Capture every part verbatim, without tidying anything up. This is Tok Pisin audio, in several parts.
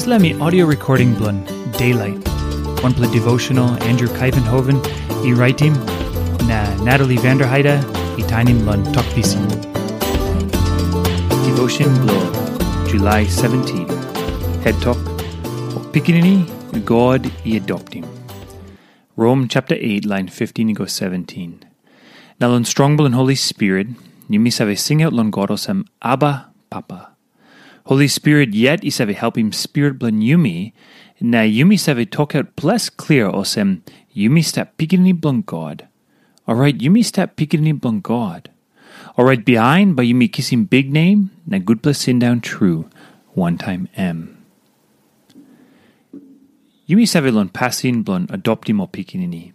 Dispela mi audio recording bilong Daylight, wanpela devotional Andrew Kaivenhoven i raitim, na Natalie Vanderheide i tainim long Tok Pisin. Devotion bilong July seventeen. Het tok, Pikinini God i adoptim. Rom chapter eight, line fifteen i go seventeen. Na long strong bilong Holy Spirit, yumi save singaut long God olsem, Abba, Papa. Holy Spirit yet i save helpim spirit bilong yumi, na yumi save tokaut ples klia olsem, yumi stap pikinini bilong God. Orait yumi stap pikinini bilong God. Orait bihain bai yumi kisim biknem na gutpela sindaun tru wantaim em. Yumi save long pasin bilong adoptim ol pikinini.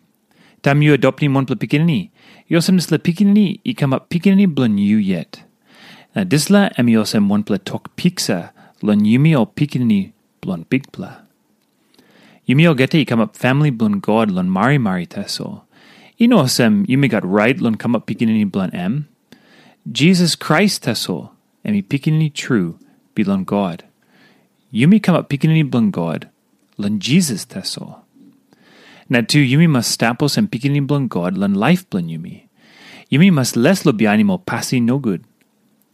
Taim yu adoptim wanpela pikinini, i olsem dispela pikinini i kamap pikinini bilong yu yet. Na dispela em i olsem wanpela tok piksa long yumi ol pikinini bilong Bikpela. Yumi olgeta i kamap famili bilong God long marimari tasol. I no olsem yumi gat rait long kamap pikinini bilong em. Jisas Krais tasol, em i Pikinini tru bilong God. Yumi kamap pikinini bilong God long Jisas tasol. Na tu yumi mas stap olsem pikinini bilong God long laip bilong yumi. Yumi mas les long bihainim ol pasin nogut.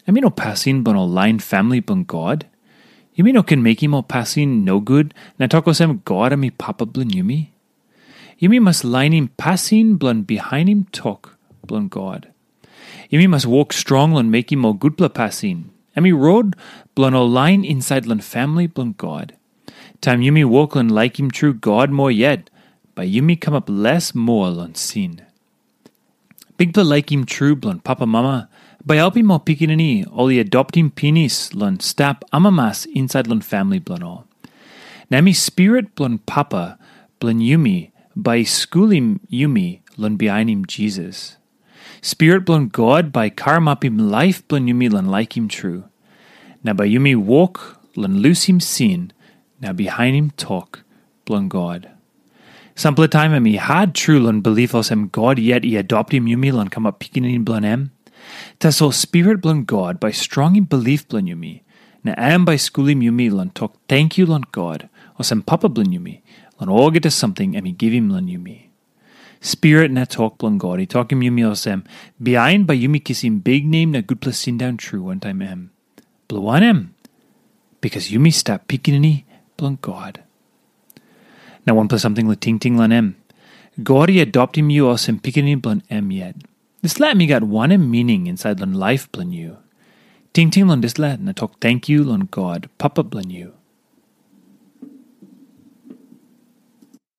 Em i no pasin bilong ol lain famili bilong God. Yumi no ken mekim ol pasin nogut na tok olsem God em i Papa bilong yumi. Yumi mas lainim pasin bilong bihainim tok bilong God. Yumi mas wok strong long mekim ol gutpela pasin. Em i rot bilong ol lain insait long famili bilong God. Taim yumi wok long laikim tru God moa yet, bai yumi kamap les moa long sin. Bikpela laikim tru bilong papamama bai helpim ol pikinini ol i adoptim pinis long stap amamas insait long famili bilong ol. Na em i Spirit bilong Papa bilong yumi bai i skulim yumi long bihainim Jisas. Spirit bilong God bai i karamapim laip bilong yumi long laikim tru. Na bai yumi wok long lusim sin na bihainim tok bilong God. Sampela taim em i hat tru long bilip olsem God yet i adoptim yumi long kamap pikinini bilong em. Tasol Spirit bilong God bai strongim bilip bilong yumi, na em bai skulim yumi long tok tenkyu long God, olsem Papa bilong yumi, long olgeta samting em i givim long yumi. Spirit na tok bilong God i tokim yumi olsem, bihain bai yumi kisim biknem na gutpela sindaun tru wantaim em. Bilong wanem? Bikas yumi stap pikinini bilong God. Na wanpela samting long tingting long em. God i adoptim yu olsem pikinini bilong em yet. Dispela em i gat wanem mining insait long laip bilong yu? Tingting long dispela na tok tenkyu long God, Papa bilong yu.